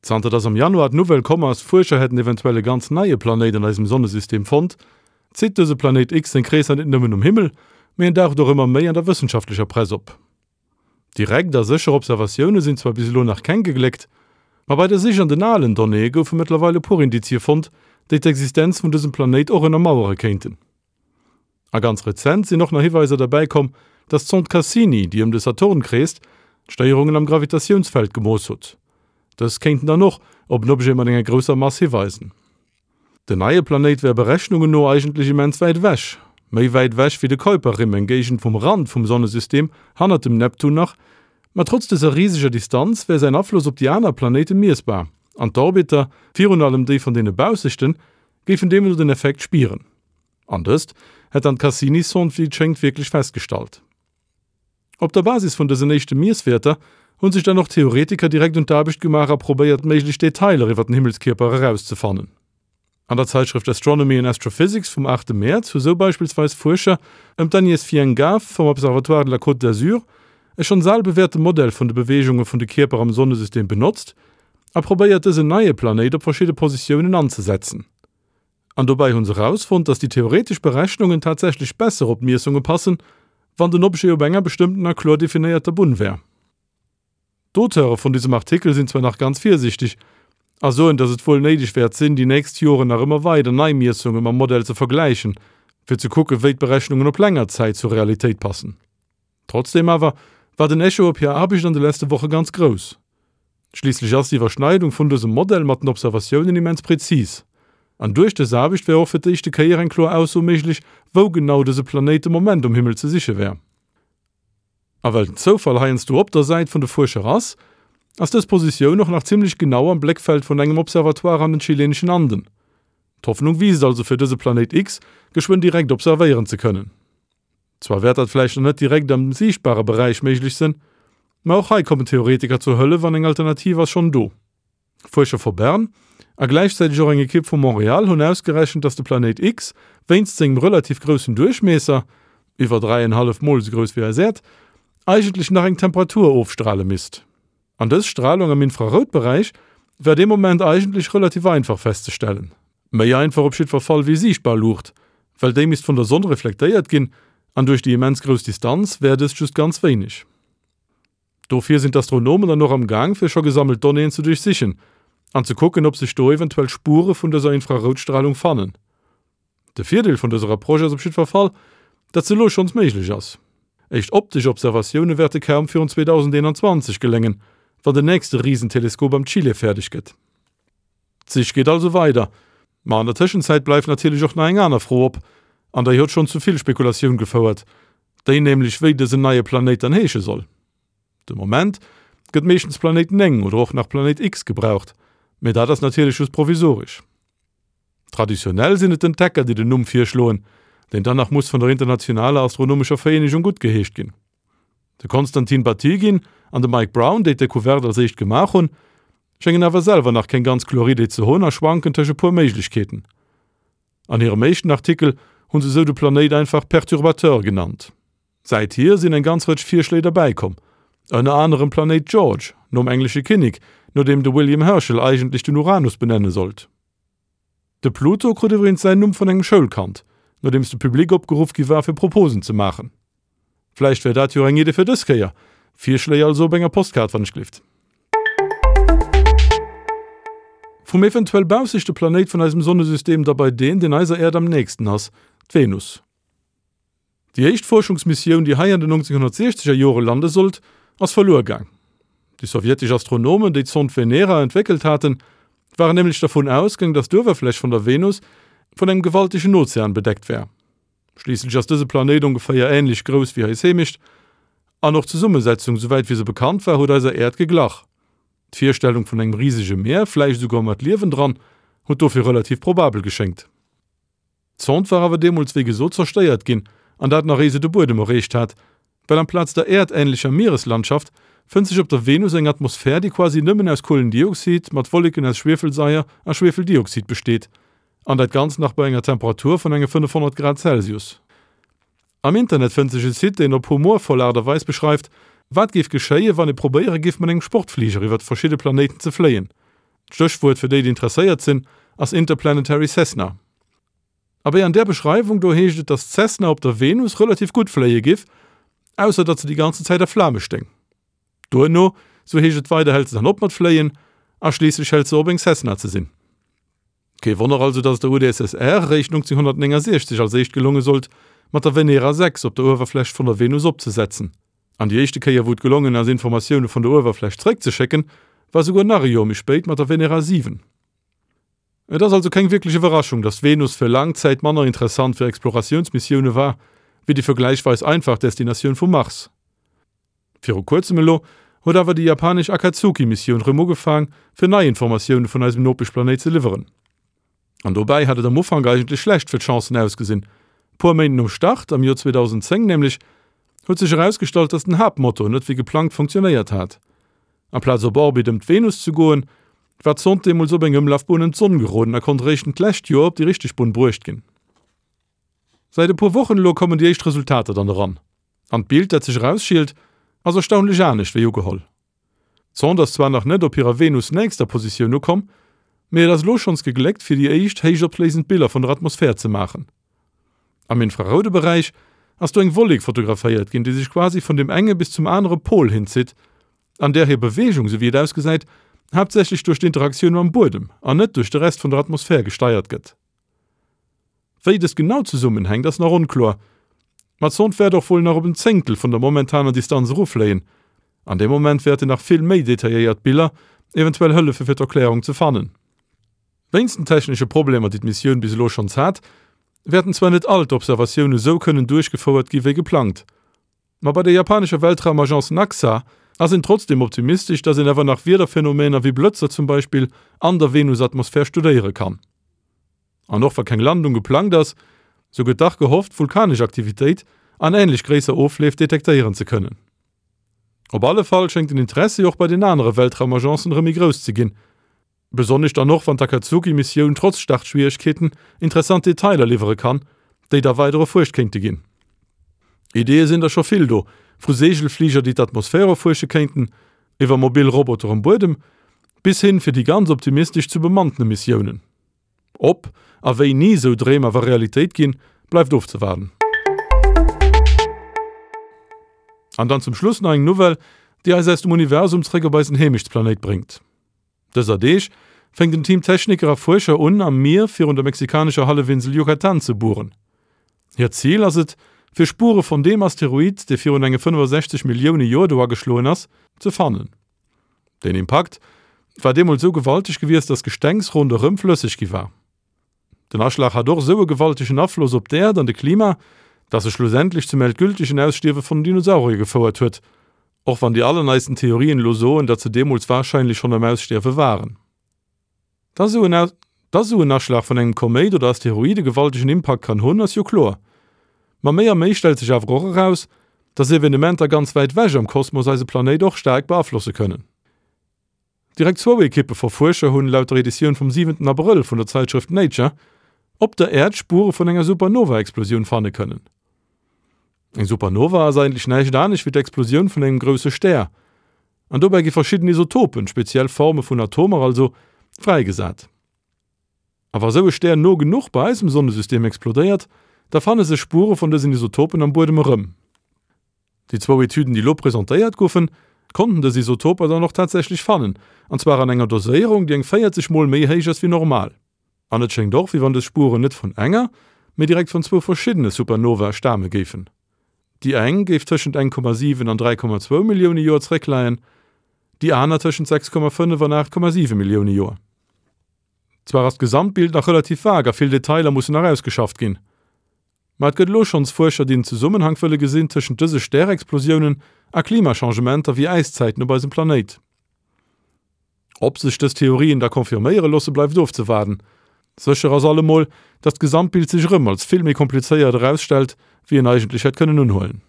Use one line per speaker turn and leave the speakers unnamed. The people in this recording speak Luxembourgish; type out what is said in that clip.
Zanter dass am Januar d'Nouvelle komm ass, Fuerscher hätten eventuell e ganz neie Planéit an eisem Sonnesystem fonnt, zitt dëse Planéit X seng Kreesser net nëmmen um Himmel, mee en daucht och ëmmer méi an der wëssenschaftlecher Press op. Direkt a sécher Observatioune sinn zwar bis elo nach keng gegléckt, ma bei der Sich an den alen Donnéeë goufe mëttlerweil e puer Indizie fonnt, déi d'Existenz vun dësem Planéit och ënnermauere kéinten. A ganz rezent sinn och nach Hiweiser derbäi komm, dass d'Sonde Cassini, déi ëm de Saturn kreest, d'Stéierungen am Gravitatiounsfeld gemooss hutt. Dës kéinten dann och op en Objet mat enger grousser Mass hiweisen. Den neie Planéit wär Berechnungen no eigentlech immens wäit ewech, méi wäit ewech wéi de Kuiperrimm, eng Géigend vum Rand vum Sonnesystem, hannert dem Neptun nach. Ma trotz dëser riseger Distanz wär säin Afloss op déi aner Planéite miessbar, an d'Orbiter, virun allem déi vun deene baussechten, géifen deemno den Effekt spieren. An dëst hätt dann d'Cassini-Sonde wéi et schéngt wierklech festgestallt. Op der Basis vun dësen éischte Miesswäerter hu sech dann och Theoretiker direkt un d'Aarbecht gemaach a probéiert méiglech Detailer iwwer den Himmelskierper erauszefannen. An der Zäitschrëft Astronomy and Astrophysics vum 8 Mäerz hu sou beispillsweis Fuerscher ëm d'Agnès Fiengav vum Observatoire de la Côte d'Azur e schonns al bewäerte Modell vun de Beweegunge vun de Kierper am Sonnesystem benotzt a probéiert dësen neie Planéit op verschidde Positiounen anzesetzen. An dobäi hu se erausfonnt, dass déi theoretesch Berechnungen tatsächlech besser op d'Miessunge passen, wann den Objet op enger bestëmmten a kloer definéierter Bunn wär. D'Auteure vun dësem Artikel sinn zwar nach ganz virsiichteg a soen, dass et wuel néideg wäert sinn, déi nächst Joren nach ëmmer weider nei Miessunge mam Modell ze vergläichen, fir ze kucken, wéi d'Berechnungen op länger Zäit zur Realitéit passen. Trotzdeem awer war den Echo op hir Aarbecht an de lesste Woche ganz grouss. Schliisslech ass d'Iwwerschneidung vun dësem Modell mat den Observatiounen immens prezis. An duerch dës Aarbecht wär och fir d'éischte Kéier eng kloer Ausso méiglech, wou genau dëse Planéit de Moment um Himmel ze siche wär. A well den Zoufall heiansdo op der Säit vun de Fuerscher ass, ass dës Positioun och nach zimmlech genau am Bléckfeld vun engem Observatoire an den chileneschen Anden. D'Hoffnung wiisst also fir dëse Planéit X geschwënn direkt observéieren ze kënnen. Zwar wäert dat vläicht nach net direkt am siichtbare Beräich méiglech sënn, ma och hei kommen Theoretiker zur Hëllef an eng Alternativ ass schonn do. Fuerscher vu Bern a gläichzäiteg och eng Ekipp vu Montréal hunn ausgerechent, dass de Planéit X wéinst sengem relativ groussen Duerchmiesser, iwwer 3,5 mol esou grouss wéi eis Äerd, eigentlech nach eng Temperatur ofstrale misst. An dës Stralung am Infraroutberäich war dee Moment eigentlech relativ einfach festzestellen. Méi einfach op jiddwer Fall wéi siichtbar Luucht, well déi misst vun der Sonn reflektéiert ginn an duerch déi immens grouss Distanz wär dëst just ganz wéineg. Dofir sinn d'Astronomen dann och am Gaang fir scho gesammelt Donnéeën ze duerchsichen an ze kucken ob sech do eventuell Spure vun dëser Infraroutstralung fannen. De Virdeel vun dëser Approche ass op jiddwer Fall, datt se elo schonns méiglech ass. Éischt optesch Observatioune wäerte kaum virun 2021 geléngen, wann den nächste Risenteleskop am Chile fäerdeg gëtt. D'Sich geet also weider. Ma an der Tëschenzäit bleift natierlech och nach eng aner Fro op, an déi huet schonn zu vill Spekulatioun gefouert, déi nämlech, wéi dësen neie Planéit dann heesche soll. De Moment gëtt meeschtens Planéit 9 oder och nach Planéit X gebraucht, mee dat ass natierlech just provisoresch. Traditionell sinn et d'Entdecker, déi den Numm virschloen, deen dann nach muss vun der Internationaler Astronomescher Vereenegung guttgeheescht ginn. De Konstantin Batygin an de Mike Brown, déi d'Decouverte als éischt gemaach hunn, schéngen awer selwer nach keng ganz kloer Idee ze hunn a schwanken tëscht e puer Méiglechkeeten. An hirem éischten Artikel hu se sou de Planéit einfach Perturbateur genannt. Säithier sinn eng ganz Rëtsch Virschléi derbäikomm, ënner anerem Planéit George, nom englesche Kinnek, no deem de William Herschel eigentlech den Uranus benenne sollt. De Pluto krut iwwregens säin Numm vun engem Schoulkand, nodeems de Public opgeruff gi war fir Proposen ze maachen. Vläicht wär dat jo eng Idee fir dës Kéier? Virschléi also op enger Postkaart wann ech glift. Vum eventuell baussechte Planéit vun eisem Sonnesystem da bei deen, deen eiser Äerd am nächsten ass, d'Venus. Déi éischt Fuerschungsmissioun, déi hei an den 1960er Jore lande sollt, ass verluer gaang. Déi sowjetesch Astronomen, déi d'Sond Venera entwéckelt haten, waren nämlech dervun ausgaang, datt d'Uewerfläch vun der Venus vun engem gewaltegen Ozean bedeckt wär. Schliisslech ass dëse Planéit ongeféier änlech grouss wéi eis Heemecht, an och d'Zesummesetzung, souwäit wéi se bekannt war, huet eiser Äerd geglach. D'Virstellung vun engem risege Mier, vläicht esouguer mat Liewen dran, huet dofir relativ probabel geschéngt. D'Sonde war awer deemools wéi gesot zerstéiert ginn, an dat nach éi se de Buedem erreecht hat, well amplaz der äerdähnlecher Miereslandschaft fënnt sech op der Venus eng Atmosphär, déi quasi nëmmen aus Kuelendioxid mat Wolleken aus Schwiefelsaier a Schwefeldioxid besteet, an dat Ganzt nach bei enger Temperatur vun enge 500 Grad Celsius. Am Internet fënnt sech e Site, deen op humorvoll Aart a Weis beschreift, wat géif geschéien, wann ee probéiere géif mat engem Sportfliger iwwert verschidde Planéiten ze fléien. D'Stéchwuert fir déi, déi interesséiert sinn, ass Interplanetary Cessna. Abee, an där Beschreiwung do heescht et, datt d'Cessna op der Venus relativ gutt fléie giff, ausser datt se déi ganzen Zäit a Flame stéing. Duerno, sou heescht et weider, hält se dann op mat fléien a schliisslech hält se op eng Cessna ze sinn. Kee Wonner also, datt et der UdSSR eréischt 1969 als éischt gelonge sollt, mat der Venera 6 op der Uewerfläch vun der Venus opzesetzen. An déi éischte Kéier wou et gelongen ass Informatioune vun der Uewerfläch zeréckzeschécken, war souguer nach e Joer méi spéit mat der Venera 7. Et ass also keng wierklech Iwwerraschung, datt d'Venus fir laang Zäit manner interessant fir Exploratiounsmissioune war, wéi déi vergläichweis einfach Destinatioun vum Mars. Viru kuerzem elo huet awer déi japanesch Akatsuki-Missioun rëm ugefaang, fir nei Informatioune vun eisem Nopeschplanéit ze liwweren. An dobäi hat et am Ufank eigentlech schlecht fir d'Chancen ausgesinn. Puer Méint nom Start, am Joer 2010 nämlech, huet sech erausgestallt, datt den Haaptmotor net wéi geplangt funktionéiert hat. Amplaz op Orbit ëm d'Venus ze goen, war d'Sond deemools op eng Ëmlafbunn ëm d'Sonn geroden a konnt eréischt d'lescht Joer op déi richteg Bunn bruecht ginn. Säit e puer Wochen elo kommen déi éischt Resultater dann eran. An d'Bild, dat sech erausschielt, ass erstaunlech anescht wéi ugeholl. D'Sonde ass zwar nach net op hirer Venus-nächster Positioun ukomm, mee et ass elo schonns gegléckt, fir déi éischt héichopléisend Biller vun der Atmosphär ze maachen. Am infraroude Beräich ass do eng Wollek fotograféiert ginn, déi sech quasi vun dem enge bis zum anere Pol hinzitt, an där hir Beweegung, sou wéi et ausgesäit, haaptsächlech duerch d'Interaktioun mam Buedem an net duerch de Rest vun der Atmosphär gesteiert gëtt. Wéi dëst genau zesummenhänkt, ass nach onkloer, ma d'Sond wäert och wuel nach op en Zéngtel vun der momentaner Distanz eruffléien. An deem Moment wäerten nach vill méi detailléiert Biller eventuell hëllefe fir d'Erklärung ze fannen. Wéinst den technesche Problemer, déi d'Missioun bis elo schonns hat, wäerten zwar net all d'Observatioune sou kënnen duerchgefouert gi wéi geplangt, ma bei der japanescher Weltraumagence Naxa ass een trotzdeem optimistesch, datt een awer nach Wiederphenomener wéi Blëtzer zum Beispill an der Venusatmosphär studéiere kann. An och wa keng Landung geplangt ass, sou gëtt dach gehofft, vulkanesch Aktivitéit an änlech gréisser Ofleef detektéieren ze kënnen. Op alle Fall schéngt den Interessi och bei den anere Weltraumagencen erëm méi grouss ze ginn. Besonnesch dann och, wann d'Akatsuki-Missioun trotz Startschwieregkeeten interessant Detailer liwwere kann, déi da weider erfuerscht kéinte ginn. Ideeë sinn der scho vill do, vu Seegelfliger, déi d'Atmosphär erfuersche kéinten, iwwer mobil Roboter um Buedem, bis hin, fir déi ganz optimistesch, zu bemannte Missiounen. Ob a wéini esou Dreem awer Realitéit ginn, bleift ofzewaarden. An dann zum Schluss nach eng Nouvelle, déi eis aus dem Universum zréck op eisen Heemechtsplanéit bréngt. Dëser Deeg fänkt en Team Techniker a Fuerscher un, am Mier virun der mexikanescher Hallefinsel Yucatán ze bueren. Hiert Zil ass et, fir Spuere vun deem Asteroid, dee virun enge 65 Millioune Joer do ageschloen ass, ze fannen. Den Impakt war deemools sou gewalteg gewiesst, datt d'Gestengs ronderëm flësseg gi war. Den Aschlag hat och esou e gewaltegen Afloss op d'Äerd an de Klima, datt e schlussendlech zum endgültegen Ausstierwe vun den Dinosaurier gefouert huet, och wann déi allerneisten Theorien elo soen, datt se deemools warscheinlech schonn am Ausstierwe waren. Dass esou en Dass esou en Aschlag vun engem Koméit oder Asteroid e gewaltegen Impakt kann hunn, ass jo kloer. Ma méi a méi stellt sech awer och eraus, dass Evenementer ganz wäit ewech am Kosmos eise Planéit och staark beaflosse kënnen. Direkt zwou Ekippe vu Fuerscher hunn, laut der Editioun vum siwenten Abrëll vun der Zäitschrëft Nature, op der Äerd Spuere vun enger Supernova-Explosioun fanne kënnen. Eng Supernova ass eigentlech näischt anescht wéi d'Explosioun vun engem grousse Stär. An dobäi gi verschidden Isotopen, speziell Forme vun Atomer also, fräigesat. A wa sou e Stär no genuch bei eisem Sonnesystem explodéiert, da fanne sech Spuere vun dësen Isotopen am Buedem erëm. Déi zwou Etüden, déi elo presentéiert goufen, konnten dës Isotoper dann och tatsächlech fannen, an zwar an enger Doséierung, déi eng 40 Mol méi héich ass wéi normal. An et schéngt och, wéi wann dës Spueren net vun enger, mee direkt vun zwou verschiddene Supernovae stame géifen. Déi eng géif tëschent 1,7 an 3,2 Millioune Joer zeréckleien, déi aner tëschent 6,5 an 8,7 Millioune Joer. Zwar ass d'Gesamtbild nach relativ vag a vill Detailer mussen nach ausgeschafft ginn, ma et gëtt elo schonns Fuerscher, déi en Zesummenhank wëlle gesinn tëschent dëse Stärexplosiounen a Klimachangementer wéi Äiszäiten op eisem Planéit. Ob sech dës Theorien da confirméiere loosse bleift ofzewaarden. Sécher ass allemol, datt d'Gesamtbild sech erëm als vill méi komplizéiert erausstellt, wéi een eigentlech hätt kënnen unhuelen.